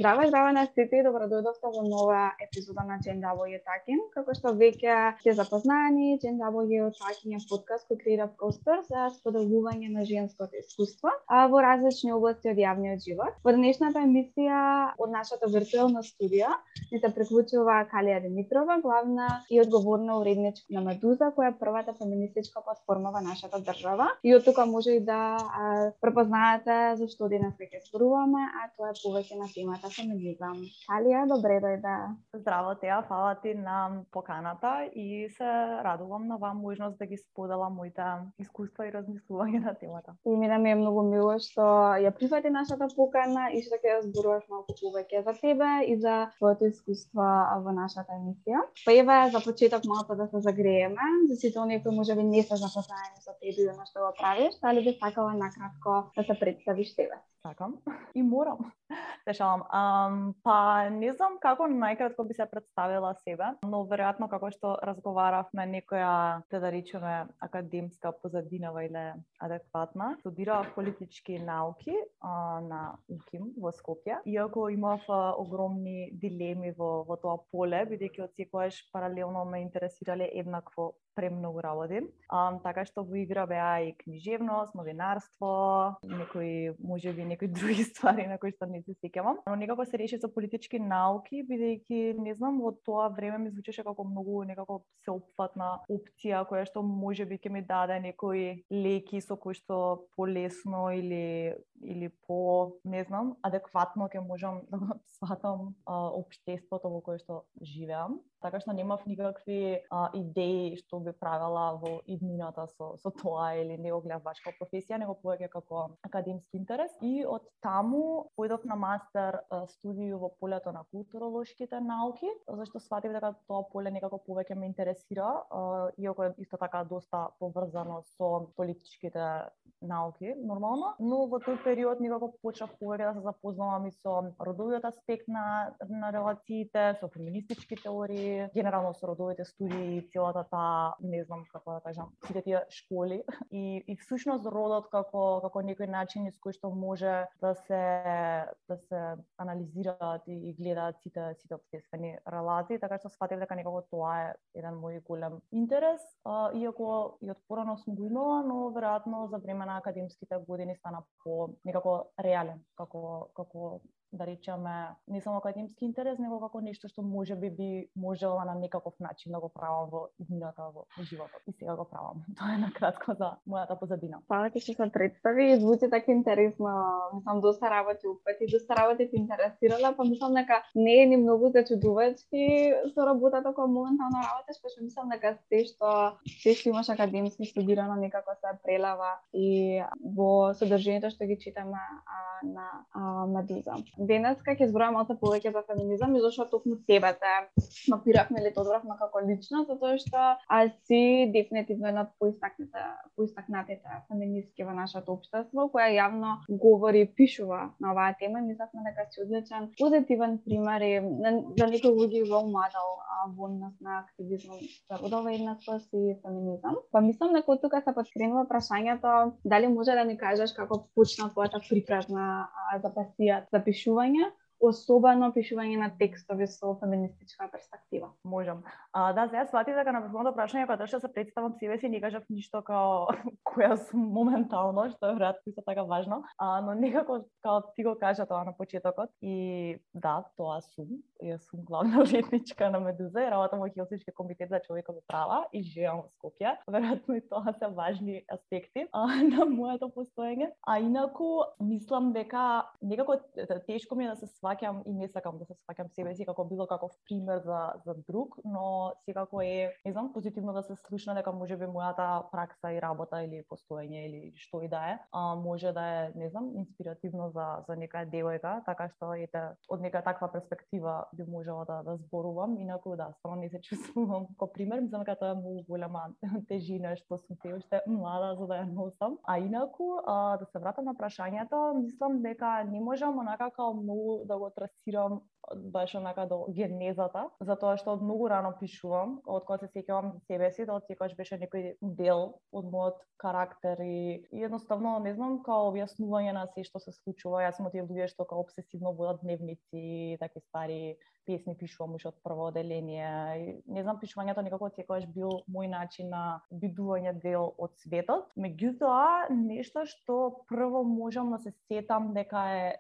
Здраво на сите и добродојдовте во нова епизода на JW Talking. Како што веќе сте запознани, JW Talking е подкаст кој креира простор за споделување на женското искуство во различни области од јавниот живот. Во денешната емисија од нашата виртуелна студија ни се приклучува Калија Димитрова, главна и одговорна уредничка на Медуза, која е првата феминистичка платформа во нашата држава. И од тука може и да препознаете зашто денес ќе зборуваме, а тоа е повеќе на темата феминизам. Калија, добре дојде. Здраво, Теа, фала ти на поканата и се радувам на вам можност да ги споделам моите искуства и размислувања на темата. И ми е многу мило што ја прифати нашата покана и што ќе зборуваш малку повеќе за тебе и за твоето искуство во нашата емисија. Па еве за почеток малку да се загрееме, за сите оние кои можеби не се запознаени со тебе и на што го правиш, дали би сакала накратко да се представиш тебе? Сакам и морам. Се шалам. Па не знам како најкратко би се представила себе, но веројатно како што разговаравме некоја, да речеме, академска позадинава или адекватна. Студирав политички науки на УКИМ во Скопје. Иако имав огромни дилеми во тоа поле, бидејќи од секогаш паралелно ме интересирале еднакво премногу работи. Така што во игра беа и книжевност, новинарство, некои други ствари на кои што не се сеќавам. Но некако се реши со политички науки, бидејќи не знам, во тоа време ми звучеше како многу некако сеопфатна опција која што можеби ќе ми даде некои леки со кои што полесно или по, не знам, адекватно ќе можам да го сватам општеството во кое што живеам. Така што немав никакви идеи што би правела во иднината со тоа или не го гледав баш како професија, него повеќе како академски интерес. И од таму појдов на мастер студију во полето на културолошките науки, зашто сватив дека тоа поле некако повеќе ме интересира, иако е исто така доста поврзано со политичките науки, нормално, но во тој период некако почнав повеќе да се запознавам и со родовиот аспект на релациите, со феминистички теории, генерално со родовите студии, целата таа, не знам како да кажам, сите тие школи и всушност родот како некој начин из кој што може да се анализираат и гледаат сите општествени релации, така што сфатив дека некако тоа е еден мој голем интерес, иако и од порано сум го имала, но веројатно за време на академските години стана по некако реален, како да речеме, не само академски интерес, него како нешто што можеби би можела на некаков начин да го правам во иднината во животот. И сега го правам. Тоа е накратко за мојата позадина. Фала ти што се представи и звучи така интересно. Мислам, доста работи упати, доста работи ти интересирала, па мислам дека не е ни многу зачудувачки со работата која моментално работиш, па што мислам дека се што имаш академски студирано некако се прелава и во содржието што ги читаме на Медуза. Денес ќе зборуваме малку повеќе за феминизам и зашто токму тебе те мапиравме или те одбравме како личност, затоа што си дефинитивно една од поистакнатите феминистки во нашето општество, која јавно говори и пишува на оваа тема. Мислевме дека си одличен позитивен пример и за некои луѓе рол модел во однос на активизмот за родова еднаквост и феминизам. Па мислам дека од тука се подкренува прашањето дали може да ни кажеш како почна твојата припразна за пасија за пишување, особено пишување на текстови со феминистичка перспектива. Можам. Да, сега сватив дека на првото прашање кога требаше да се представам себе си, не кажав ништо као која сум моментално, што е веројатно исто така важно, но некако као ти го кажа тоа на почетокот и да, тоа сум. Јас сум главна уредничка на Медуза и работам во Хелсински комитет за човекови права и живеам во Скопје. Веројатно и тоа се важни аспекти на моето постоење. А инаку мислам дека некако тешко ми е да се сваќам и не сакам да се сваќам себе си како било каков пример за друг, но секако е, не знам, позитивно да се слушна дека можеби мојата пракса и работа или постоење или што и да е, може да е, не знам, инспиративно за некоја девојка, така што ете од нека таква перспектива би можела да зборувам, инаку да, само не се чувствувам како пример, мислам дека тоа е многу голема тежина што сум се уште млада за да ја носам. А инаку да се вратам на прашањето, мислам дека не можам онака како многу да го трасирам беше онака до генезата, затоа што од многу рано пишувам, од кога се сеќавам за себе си, тоа секогаш беше некој дел од мојот карактер и едноставно не знам као објаснување на се што се случува. Јас сум од тие луѓе што као обсесивно водат дневници, такви стари песни пишувам уште од прво оделение. Не знам, пишувањето некако секогаш бил мој начин на бидување дел од светот. Меѓутоа, нешто што прво можам да се сетам дека е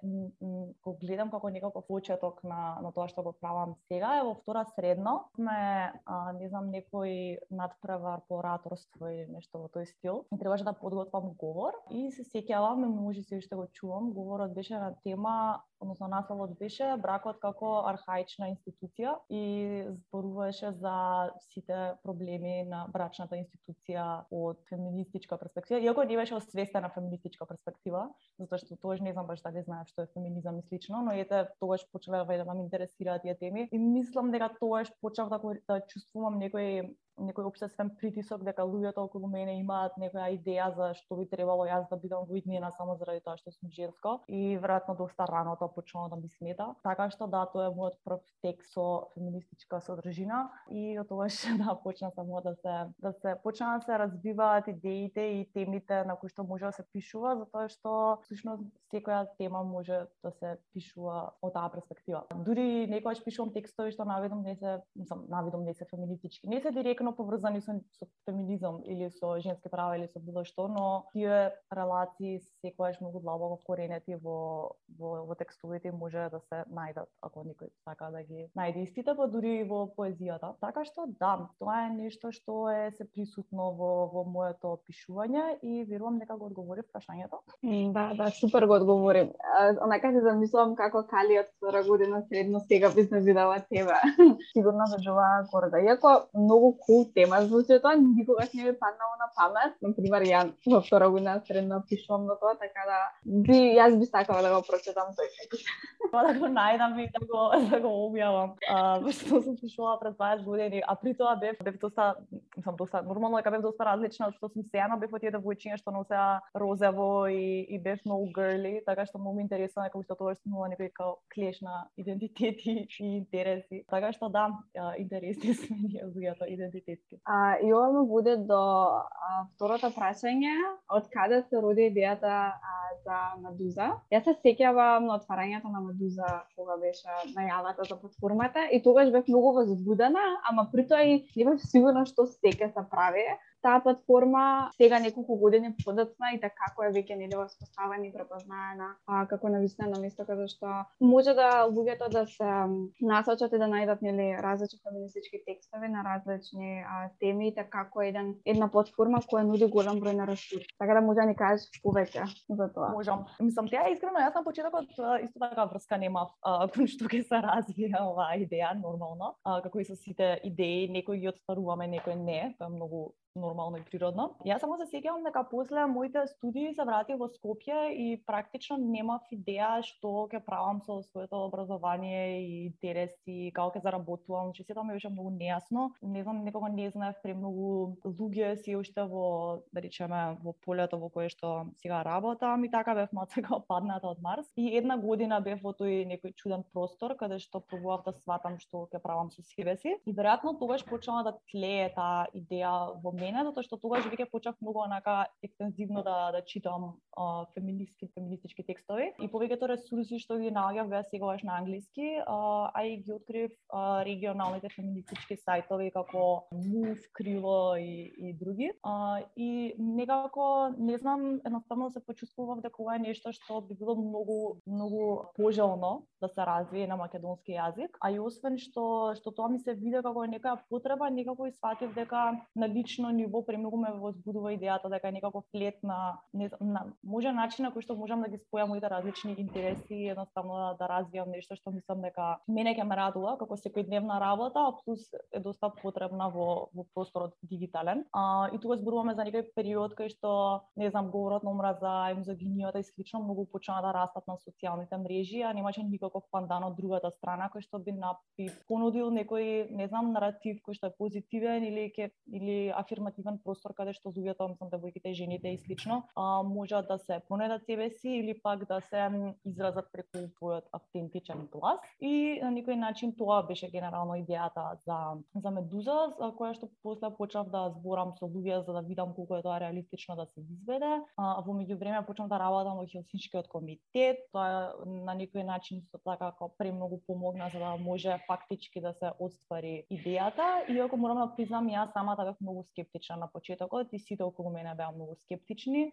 го гледам како некаков почеток на тоа што го правам сега е во втора средно. Не знам, некој надпревар по ораторство или нешто во тој стил. И требаше да подготвам говор и се сеќавам, може се уште го чувам, говорот беше на тема, односно насловот беше бракот како архаична институција и зборуваше за сите проблеми на брачната институција од феминистичка перспектива, иако не беше освестена феминистичка перспектива, затоа што тогаш не знам баш дали знаев што е феминизам и слично, но ете тогаш почнале да ме интересираат тие теми и мислам дека тогаш почнав да чувствувам некој општествен притисок дека луѓето околу мене имаат некоја идеја за што би требало јас да бидам во иднина само заради тоа што сум женско и веројатно доста рано тоа почнало да ми смета. Така што да, тоа е мојот прв текст со феминистичка содржина и од тогаш да почна само да се почна да се развиваат идеите и темите на кои што може да се пишува, затоа што всушност секоја тема може да се пишува од таа перспектива. Дури некогаш пишувам текстови што наведом не се феминистички, не се директно поврзани со феминизам или со женски права или со било што, но тие релации секогаш многу длабоко вкоренети во текстовите може да се најдат ако некој сака да ги најде истите, па дури во поезијата. Така што да, тоа е нешто што е се присутно во моето пишување и верувам дека го одговори прашањето. Да, супер го одговори. Онака се замислувам како Кали од втора година средно сега би се видела тебе. Сигурно заџува горда. Иако многу кул тема звучи тоа, никогаш не ми паднало на памет. Например, ја во втора година средно пишувам на тоа, така да јас би сакала да го прочитам тој текст. Да го најдам и да го објавам. Што сум пишувала пред 20 години, а при тоа бев доста нормално дека бев доста различна од што сум сега, но бев од тие девојчиња што носеа розево и бев многу girly, така што многу интересно дека уште тогаш сум имала некој клеш на идентитети и интереси. Така што да, интересни сме ние луѓето идентитетски. И ова ме води до второто прашање, од каде се роди идејата за Медуза. Јас се сеќавам на отварањето на Медуза кога беше најавата за платформата и тогаш бев многу возбудена, ама при тоа и не бев сигурна што се ќе се прави. Таа платформа сега неколку години подоцна и така како е веќе нели воспоставена и препознаена како навистина место каде што може да луѓето да се насочат и да најдат нели различни феминистички текстови на различни теми, така како една платформа која нуди голем број на ресурси. Така да може да ни кажеш повеќе за тоа. Можам. Мислам, таа искрено јас на почетокот исто така врска немав кон што ќе се развие оваа идеја нормално, како и со сите идеи, некои ги отстваруваме, некои не, тоа е многу нормално и природно. Јас само се сеќавам дека после моите студии се вратив во Скопје и практично немав идеја што ќе правам со своето образование и интереси, како ќе заработувам, че сето ми беше многу нејасно. Не знам, некога не знаев премногу луѓе си уште во, да речеме, во полето во кое што сега работам и така бев мацека падната од Марс. И една година бев во тој некој чуден простор каде што пробував да сватам што ќе правам со себе си. И веројатно тогаш почнала да тлее таа идеја во мене, затоа што тогаш веќе почнав многу онака екстензивно да читам феминистички текстови и повеќето ресурси што ги наоѓав беа сегаш на англиски, а и ги открив регионалните феминистички сајтови како Move, Крило и други. И некако, не знам, едноставно се почувствував дека ова е нешто што би било многу пожелно да се развие на македонски јазик, а и освен што тоа ми се виде како некоја потреба, некако и сватив дека на лично ниво премногу ме возбудува идејата дека е некако флет на може начин на кој што можам да ги спојам моите различни интереси и едноставно да развијам нешто што мислам дека мене ќе ме радува како секојдневна работа, а плюс е доста потребна во просторот дигитален. И тука зборуваме за некој период кај што, не знам, говорот на омраза и мизогинијата и слично многу почна да растат на социјалните мрежи, а немаше никаков пандан од другата страна кој што би понудил некој, не знам, наратив кој што е позитивен или афирмативен простор каде што луѓето, мислам девојките, жените и слично, можат да се понедат себе си или пак да се изразат преку својот автентичен глас. И на некој начин тоа беше генерално идејата за Медуза, за која што после почнав да зборам со луѓе за да видам колку е тоа реалистично да се изведе. Во меѓувреме почнав да работам во Хелсиншкиот комитет. Тоа на некој начин исто така како премногу помогна за да може фактички да се оствари идејата. Иако морам да признам, јас самата бев многу скептична на почетокот и сите околу мене беа многу скептични,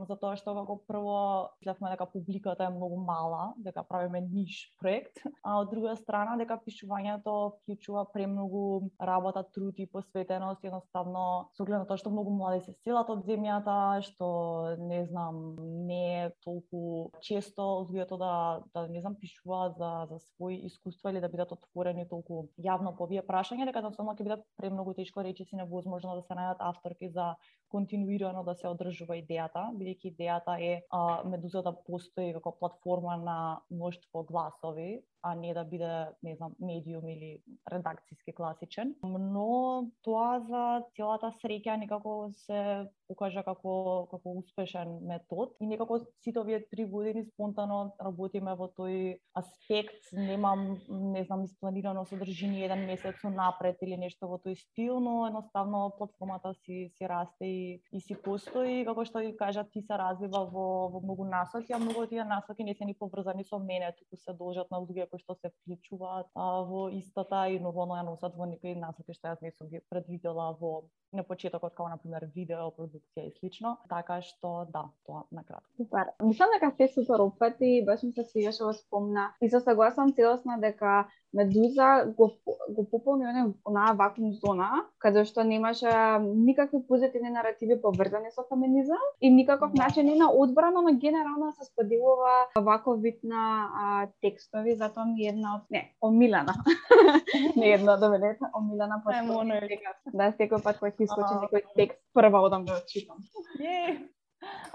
затоа што како прво мислевме дека публиката е многу мала, дека правиме ниш проект, а од друга страна дека пишувањето вклучува премногу работа, труд и посветеност, едноставно со оглед на тоа што многу млади се селат од земјата, што не знам, не е толку често луѓето да не знам пишуваат за своји искуства или да бидат отворени толку јавно по овие прашања, дека едноставно ќе биде премногу тешко, речиси невозможно да се најдат авторки за континуирано да се одржува идејата, бидејќи идејата е Медуза да постои како платформа на мноштво гласови, а не да биде, не знам, медиум или редакцијски класичен. Но тоа за целата среќа некако се покажа како успешен метод и некако сите овие 3 години спонтано работиме во тој аспект. Немам, не знам, испланирано содржини еден месец напред или нешто во тој стил, но едноставно платформата си расте и си постои, како што ви кажа, ти се развива во многу насоки, а многу од тие насоки не се ни поврзани со мене, туку се должат на луѓе кои што се вклучуваат во истата и нормално ја носат во некои насоки што јас не сум ги предвидела на почетокот, како на пример видео, продукција и слично. Така што да, тоа накратко. Супер. Мислам дека се супер опфати, баш ми се свигаше во спомна. И се согласам целосно дека Медуза го пополни онаа вакуум зона, каде што немаше никакви позитивни наративи поврзани со феминизам и никаков начин на одбрана, но генерално се споделува ваков вид на текстови, затоа ми една од омилена. Не една од мене, омилена потпора. Да, секој пат кога ќе искочи некој текст, прва одам да го читам.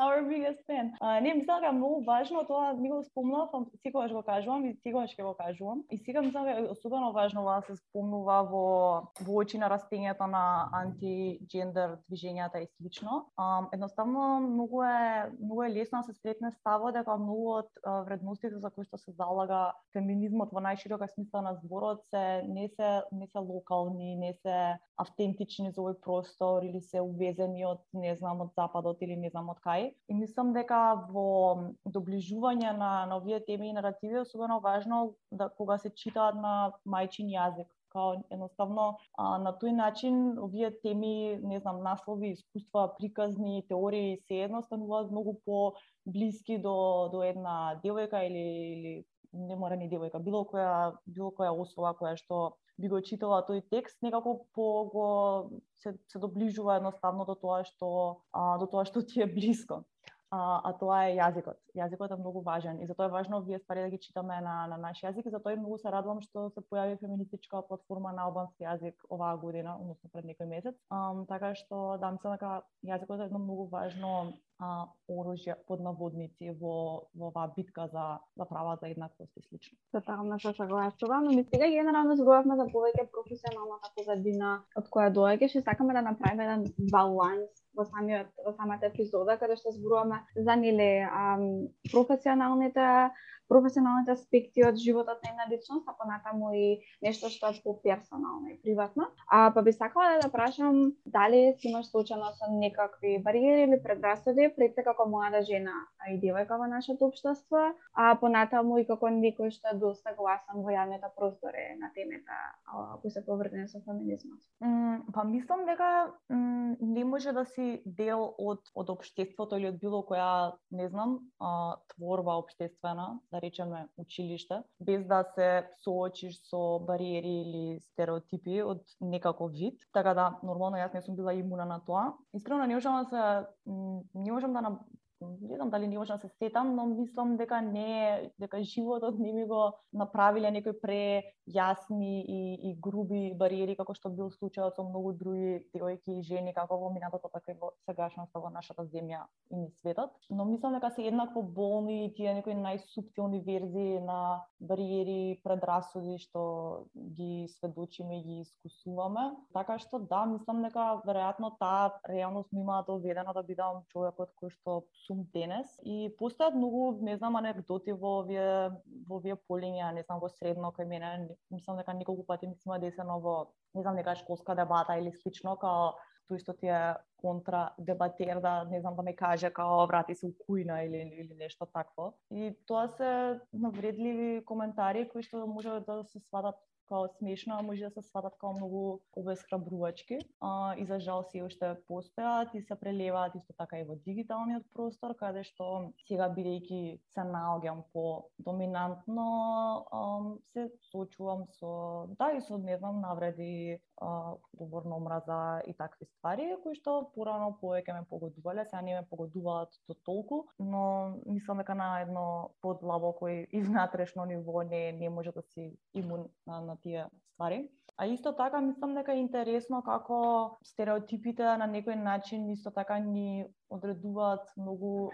Our biggest fan. Не, мислам дека е многу важно, тоа ми го спомнав, секогаш го кажувам и секогаш ќе го кажувам. И сега мислам дека е особено важно да се спомнува во очи на растењето на антиджендер движењата и слично. Едноставно многу е лесно да се сретне ставот дека многу од вредностите за кои што се залага феминизмот во најширока смисла на зборот не се локални, не се автентични за овој простор или се увезени од, не знам, од западот или не знам од кај. И мислам дека во доближување на овие теми и наративи е особено важно да кога се читаат на мајчин јазик. Као едноставно на тој начин овие теми, не знам, наслови, искуства, приказни, теории се едноставуваат многу по-блиски до една девојка или не мора ни девојка, било која особа која што би го читала тој текст, некако се доближува едноставно до тоа што ти е блиско. А тоа е јазикот. Јазикот е многу важен и затоа е важно овие ствари да ги читаме на наш јазик и затоа многу се радувам што се појави феминистичка платформа на албански јазик оваа година, односно пред некој месец. Така што да, мислам дека јазикот е едно многу важно оружје под наводници во оваа битка за права за еднаквост и слично. Тотално се согласувам, но ми сега генерално зборувавме за повеќе професионалната позадина од која доаѓаш и сакаме да направиме еден баланс во самата епизода каде што зборуваме за професионалните аспекти од животот на една личност, а понатаму и нешто што е поперсонално и приватно. Па би сакала да прашам дали си имаш случајно со некакви бариери или предрасуди пред се како млада жена и девојка во нашето општество, а понатаму и како некој што е доста гласен во јавните простори на темата кои се поврзани со феминизмот. Па мислам дека не може да си дел од општеството или од било која, не знам, творба општествена, да речеме училиште, без да се соочиш со бариери или стереотипи од некаков вид. Така да, нормално јас не сум била имуна на тоа. Искрено не можам да не знам дали не можам да се сетам, но мислам дека животот не ми го направиле некои прејасни и груби бариери како што бил случајот со многу други девојки и жени како во минатото, така и во сегашноста во нашата земја и низ светот. Но мислам дека се еднакво болни и тие некои најсуптилни верзии на бариери, предрасуди што ги сведочиме и ги искусуваме. Така што да, мислам дека веројатно таа реалност ми има доведена да бидам човекот кој што сум денес. И постојат многу, не знам, анекдоти во овие полиња, не знам, во средно кај мене, мислам дека неколку пати ми се има десено во, не знам, нека школска дебата или слично, као тој што ти е контра дебатер да, не знам, да ме каже као врати се у кујна или нешто такво. И тоа се навредливи коментари кои што може да се сватат као смешно, а може да се сватат као многу обесхрабрувачки. И за жал се уште постојат и се прелеваат исто така и во дигиталниот простор, каде што сега бидејќи се наоѓам по доминантно се соочувам со и со не знам навреди, говор на омраза и такви ствари кои што порано повеќе ме погодувале, сега не ме погодуваат до толку, но мислам дека на едно подлабоко и внатрешно ниво не може да си имун на тие ствари. А исто така мислам дека е интересно како стереотипите на некој начин исто така ни одредуваат многу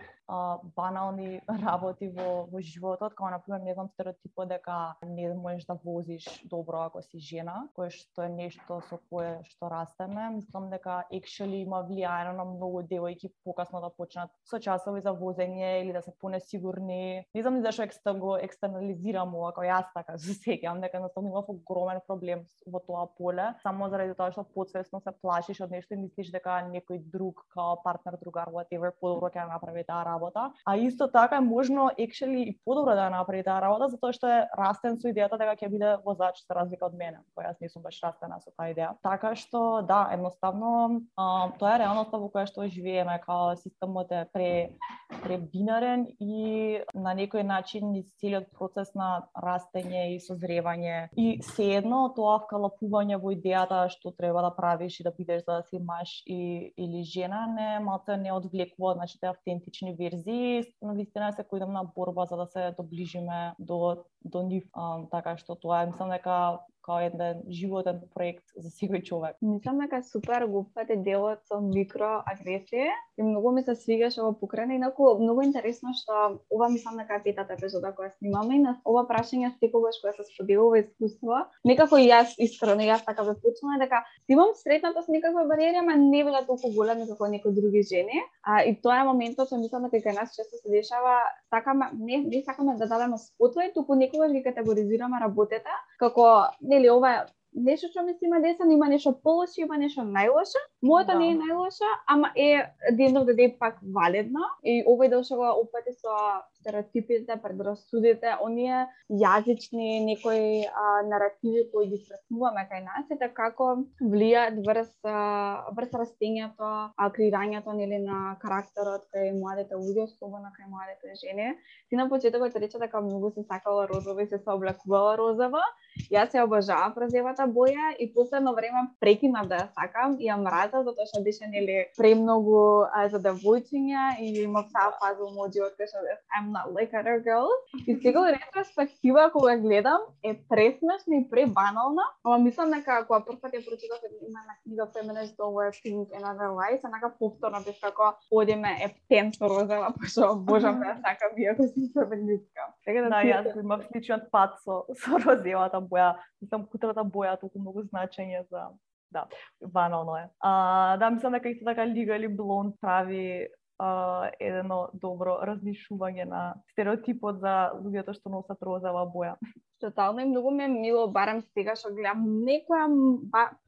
банални работи во животот, како например, не знам, стереотипот дека не можеш да возиш добро ако си жена, кое што е нешто со кое што растеме. Мислам дека actually има влијање на многу девојки покасно да почнат со часови за возење или да се понесигурни. Не знам зашто го екстернализирам ова, како јас така се сеќавам дека едноставно имав огромен проблем во тоа поле, само заради тоа што потсвесно се плашиш од нешто и мислиш дека некој друг, као партнер, другар, whatever, подобро ќе направи таа работа. А исто така е можно actually и подобро да направи таа работа, затоа што е растен со идејата дека ќе биде возач за разлика од мене, која јас не сум баш растена со таа идеја. Така што да, едноставно тоа е реалноста во која што живееме, као системот е пребинарен и на некој начин низ целиот процес на растење и созревање и sejedno тоа вкалапување во идејата што треба да правиш и да бидеш за да си маж или жена не одвлекува од нашите автентични верзии, но вистина секојдневна борба за да се доближиме до нив, така што тоа е, мислам дека као еден животен проект за секој човек. Мислам дека супер го упфате делот со микроагресија и многу ми се свигаше ова покрајна, инаку многу интересно што ова мислам дека е петата епизода која снимаме и на ова прашање секогаш кога се споделува искуство, некако и јас искрено така бе почнала дека имам сретната со некаква бариера, ама не била толку голема како некои други жени. И тоа е моментот што мислам дека кај нас често се дешава, не сакаме да дадеме спотливост, туку некогаш ги категоризираме работата како нели ова нешто што ми се има десено, има нешто полошо, има нешто најлошо. Моето не е најлошо, ама е ден да е пак валидно. И овој дел што го опати со стереотипите, предрасудите, оние јазични некои наративи кои ги сретнуваме кај нас, и како влијаат врз растењето, креирањето нели на карактерот кај младите луѓе, особено кај младите жени. Ти на почетокот рече дека многу се сакала розово и се облекувала розово. Јас ја обожавам розовата боја и последно време прекинав да ја сакам и ја мразам затоа што беше нели премногу за девојчиња и имав таа фаза у мојот живот кај што I'm not like other girls. И сега во ретроспектива кога гледам е пресмешна и пребанална, ама мислам дека кога прв пат ја прочитав има на книга Feminist Don't Wear Pink and Other Lies, онака повторно бев како одиме птенско розова, пошто обожам да ја сакам иако сум феминистка. Така да јас имав сличен пат со розовата боја. Мислам, кутрата боја толку многу значење за... Да, банално е. Да, мислам дека исто така Legally Blonde прави едно добро различување на стереотипот за луѓето што носат розова боја. Тотално и многу ме мило, барам сега што гледам некоја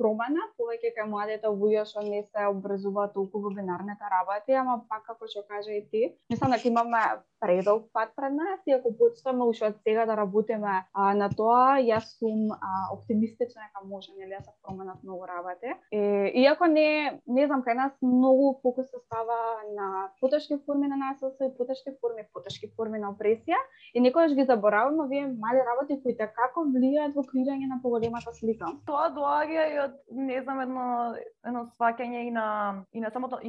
промена, повеќе кај младите луѓе што не се образуваат толку во бинарните работи, ама пак како што кажа и ти, мислам дека имаме предолг пат пред нас и ако почнеме уште од сега да работиме на тоа, јас сум оптимистична дека може нели да се променат многу работи. Иако не знам, кај нас многу фокус се става на потешки форми на насилство и потешки форми на опресија и некогаш ги забораваме овие мали работи кои како влијаат во креирање на поголемата слика. Тоа доаѓа и од не знам едно сваќање и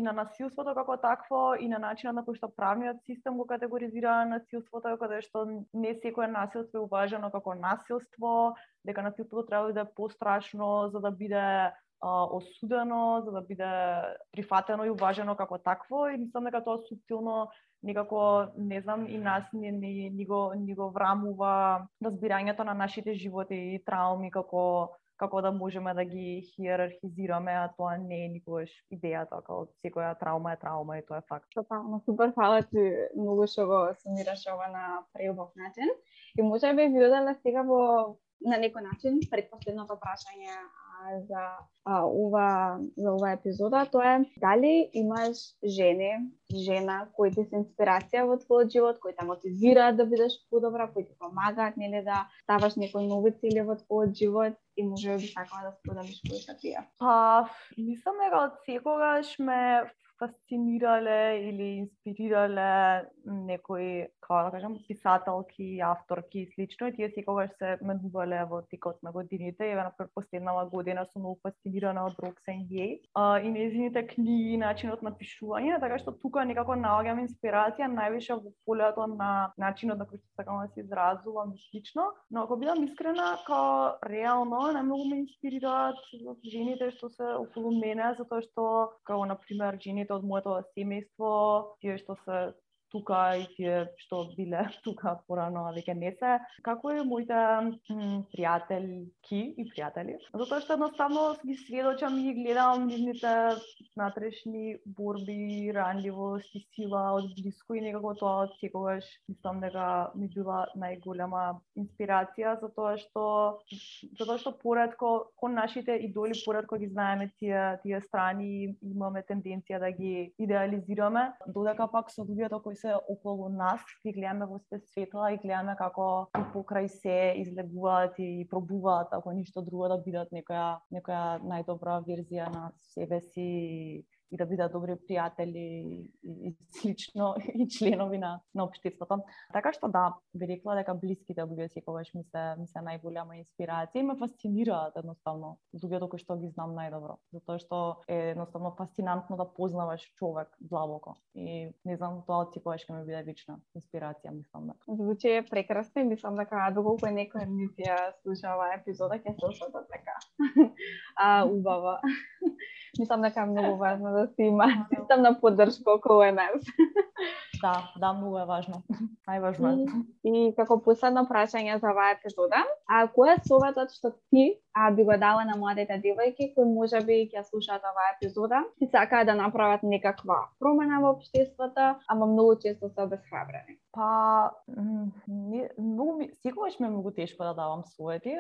на насилството како такво и на начинот на кој што правниот систем го категоризира насилството, каде што не секое насилство е уважено како насилство, дека насилството треба да биде пострашно за да биде осудено, за да биде прифатено и уважено како такво и мислам дека тоа суптилно некако, не знам, и нас ни го врамува разбирањето на нашите животи и трауми како да можеме да ги хиерархизираме, а тоа не е никогаш идејата, како секоја траума е траума и тоа е факт. Тотално, супер, фала ти многу што го сумираш ова на преубав начин. И може би ви одела сега на некој начин предпоследното прашање за ова епизода, тоа е дали имаш жена кои ти се инспирација во твојот живот, кои те мотивираат да бидеш подобра, кои ти помагаат нели да ставаш некои нови цели во твојот живот и може би сакала да споделиш кои се тие. Мислам дека од секогаш ме фасцинирале или инспирирале некои, како да кажам, писателки, авторки и слично, и тие секогаш се менувале во текот на годините. Еве на последнава година сум многу фасцинирана од Roxane Gay и нејзините книги, начинот на пишување, така што тука некако наоѓам инспирација највише во полето на начинот на кој што сакам да се изразувам и слично, но ако бидам искрена, као реално најмногу ме инспирираат жените што се околу мене, затоа што како на пример жените од моето семејство, тие што се тука и тие што биле тука порано, а веќе не се, како и моите пријателки и пријатели. Затоа што едноставно ги сведочам и ги гледам нивните внатрешни борби, ранливост и сила од блиску и некако тоа од секогаш мислам дека ми била најголема инспирација, затоа што поретко кон нашите идоли поретко ги знаеме тие страни, имаме тенденција да ги идеализираме, додека пак со луѓето кои се околу нас, ги гледаме во светла и гледаме како покрај се излегуваат и пробуваат, ако ништо друго, да бидат некоја најдобра верзија на себе си и да бидат добри пријатели и слично и членови на општеството. Така што да, би рекла дека блиските луѓе секогаш ми се најголема инспирација и ме фасцинираат едноставно луѓето кои што ги знам најдобро, затоа што е едноставно фасцинантно да познаваш човек длабоко и не знам, тоа од секогаш ќе ми биде вечна инспирација, мислам дека. Звучи прекрасно и мислам дека доколку некој ни ја слуша оваа епизода ќе се осетат така. Убаво. Мислам дека е многу важно да се има системна поддршка околу нас. Да, многу е важно. Најважно е. И како последно прашање за оваа епизода, кој е советот што ти би го дала на младите девојки кои можеби ќе слушаат оваа епизода и сакаат да направат некаква промена во општеството, ама многу често се обесхрабрени? Секогаш ми е многу тешко да давам совети,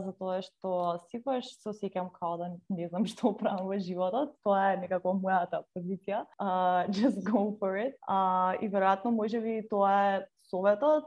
затоа што секогаш се осеќам као да не знам што правам во животот. Тоа е некако мојата позиција. Just go for it. И веројатно можеби тоа е советот,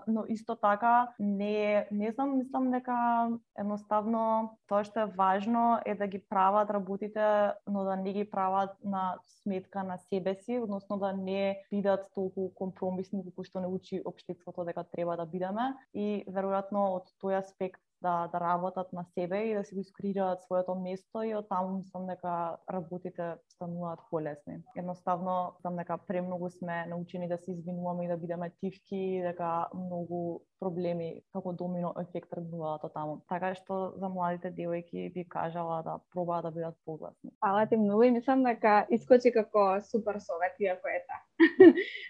но исто така не знам, мислам дека едноставно тоа што е важно е да ги прават работите, но да не ги прават на сметка на себе си, односно да не бидат толку компромисни како што не учи општеството дека треба да бидеме и веројатно од тој аспект да работат на себе и да си го искреираат своето место и од таму мислам дека работите стануваат полесни. Едноставно, мислам дека премногу сме научени да се извинуваме и да бидеме тивки, дека многу проблеми како домино ефект тргнуваат од таму. Така што за младите девојки би кажала да пробаат да бидат погласни. Фала ти многу и мислам дека искочи како супер совет, иако е та.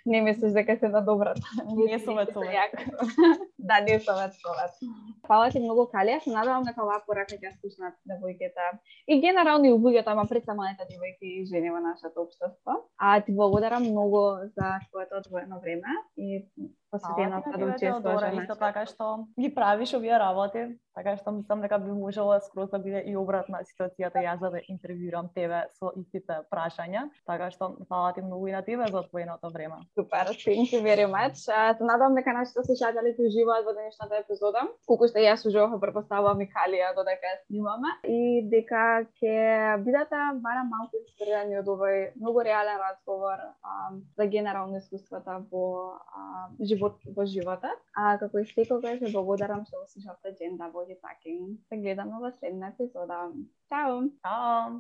Не мислиш дека се на добрата. Не совет. Да, не совет. Фала ти многу, Калија, се надевам дека оваа порака ќе слушнат девојките и генерално и луѓето, ама пред се малите девојки и жени во нашето општество. Ти благодарам многу за твоето одвоено време и посветена Фала ти да на тебе, учествуваш Теодора, во исто нашата. така што ги правиш овие работи, така што мислам дека би можела скроз да биде и обратна ситуацијата јас да те интервјуирам тебе со истите прашања, така што фала ти многу и на тебе за одвоеното време. Супер, thank you very much. Се надам дека нашите слушатели ќе уживаат во денешната епизода, колку што јас уживав, претпоставувам и Калија додека ја снимаме, и дека ќе бидете барем малку инспирирани од овој многу реален разговор за генерално искуствата во животот. Како и секогаш ве благодарам што го слушавте Gender Body Talking. Се гледаме во следна епизода. Чао! Чао!